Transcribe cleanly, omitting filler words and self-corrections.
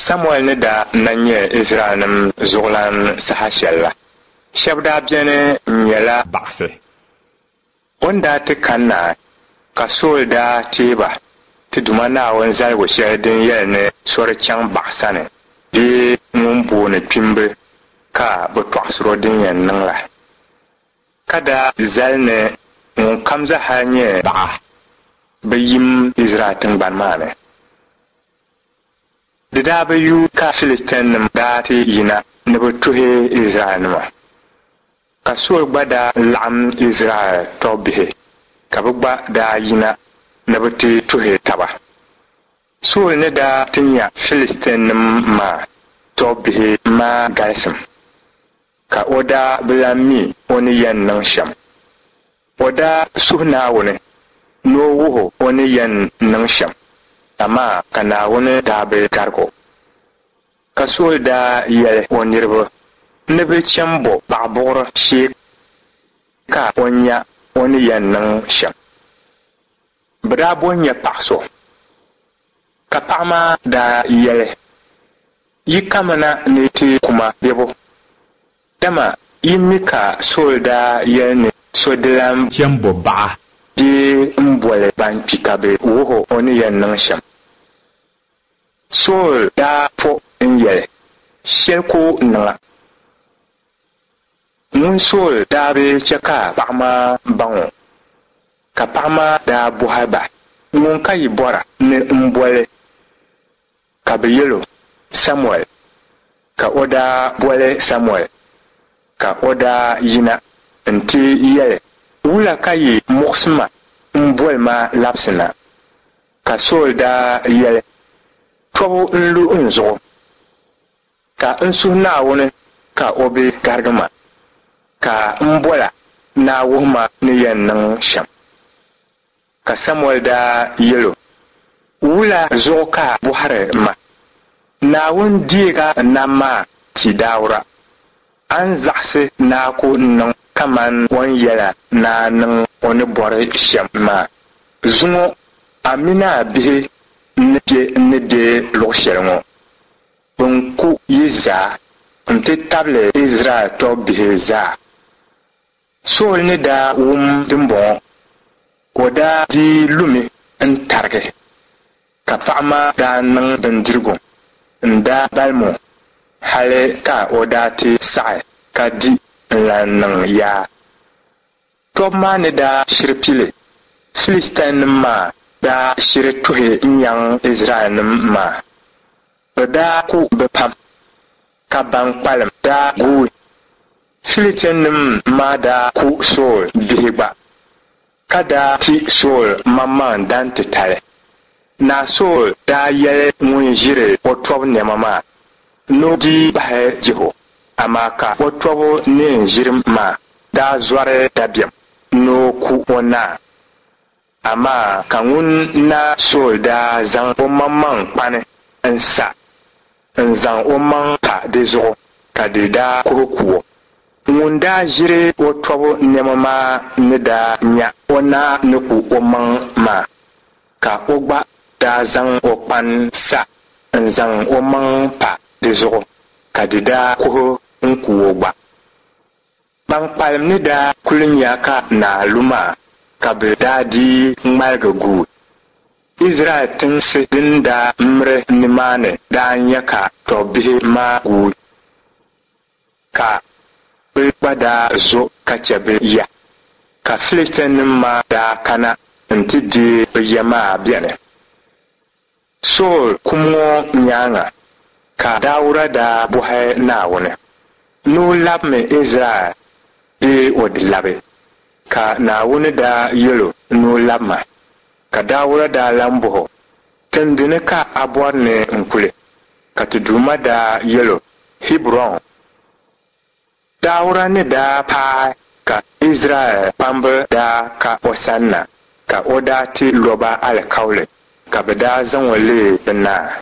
Samuɛl ni daa na nyɛ Izraɛlnim zuɣulan saha shɛl la, shɛb daa beni n-nyɛla baɣisi. O ni daa ti kanna, ka Sool daa teei ba ti Duuma Naawuni zaligu shɛli din yɛli ni so di chaŋ baɣa sani bee ŋun booni kpimbi ka bɛ tɔɣisir o din yɛn niŋ la, ka daa zali ni ŋunkam zaa nyɛ baɣa bi yim Izraɛl tiŋgbani maa ni. Di daa bi yuui ka Filistianim daa ti yina ni bɛ tuhi Izraɛlnima. Ka Sool gba daa laɣim Izraɛl tɔbbihi, ka bɛ gba daa yina ni bɛ ti tuhi taba. Sool ni daa ti nya Filistianim maa tɔbbihi maa galisim, ka o daa bi lan mi o ni yɛn niŋ shɛm. O daa suhi Naawuni ni o wuh o o ni yɛn niŋ shɛm, amaa ka Naawuni daa bi garig o. Ka Sool daa yɛli o niriba ni bɛ cham bo paɣibuɣiri shee ka o nya o ni yɛn niŋ shɛm. Bɛ daa bo n-nya paɣ so, ka paɣ maa daa yɛli, Yi kamina ni ti ku ma bebo? Dama yi mi ka Sool daa yɛli ni so di lan cham bo baɣa bee m-boli ban kpi ka bɛ wuh o o ni yɛn niŋ shɛm. Sool daa po n-yɛli, Shɛli ku niŋ a. Ŋun Sool daa bi chɛ ka paɣ maa baŋ o, ka paɣ maa daa bɔhi ba, Ŋun ka yi bɔra ni m boli? Ka bɛ yɛl o, Samuɛl. Ka o daa boli Samuɛl, ka o daa yina nti yɛli, Wula ka yi muɣisi ma m-boli ma labisi na? Ka Sool daa yɛli, Tɔbu n-lu n zuɣu, ka n suhi Naawuni ka o bi garigi ma, ka m bol a ni a wuhi ma ni yɛn niŋ shɛm. Ka Samuɛl daa yɛl o, Wula zuɣu ka a bɔhiri ma? Naawuni deeg a nam maa ti daawura. A ni zaɣisi ni a ku niŋ kaman o ni yɛl a ni a niŋ o ni bɔri shɛm maa. Zuŋɔ a min a bihi ni be n ni be luɣ shɛli ŋɔ, bɛn ku yi zaa nti tabili Izraɛl tɔbbihi zaa. Sool ni daa wum dimbɔŋɔ, o daa dii lumi n-tarigi, ka paɣ maa daa niŋ bindirigu n-daa balim o hali ka o daa ti saɣi ka di n-lan niŋ yaa. Tɔbu maa ni daa shiri pili, Filistianim maa daa shiri tuhi n-nyaŋ Izraɛlnim maa. Bɛ daa ku bɛ pam, ka ban kpalim daa guui. Filistianim maa daa ku Sool bihi gba, ka daa ti Sool maŋmaŋ dan titali. Naa Sool daa yɛli ŋun ʒiri o tɔbu nɛma maa ni o dii bahi jih o, amaa ka o tɔbu neen ʒiri maa daa zɔri dabiɛm ni o ku o naa. Amaa ka ŋun Naa Sool daa zaŋ omaŋmaŋ kpani n-sa n-zaŋ omaŋ pa di zuɣu, ka di daa kuhi ku o. Ŋun daa ʒiri o tɔbu nɛma maa ni daa nya o naa ni ku omaŋ maa, ka o gba daa zaŋ o kpani sa n-zaŋ omaŋ pa di zuɣu, ka di daa kuhi n-ku o gba. Ban kpalim ni daa kuli nya ka naa lu maa, ka bɛ daa dii ŋmaligi guui. Izraɛl tinsi din daa miri nimaani daa nya ka tɔbbihi maa guui, ka bɛ gba daa zo ka chɛ bɛ ya. Ka Filistianim maa daa kana nti deei bɛ ya maa beni. Sool kum ŋɔ nyaaŋa ka Dauda daa bɔhi Naawuni ni o labimi Izraɛl bee o di labi? Ka Naawuni daa yɛl o ni o labima. Ka Dauda daa lan bɔh o, Tindini ka a bɔri ni n kuli? Ka ti Duuma daa yɛl o, Hiburɔn. Dauda ni daa paai ka Izraɛl kpamba daa ka o sanna, ka o daa ti lo ba alikauli, ka bɛ daa zaŋ o leei bɛ naa.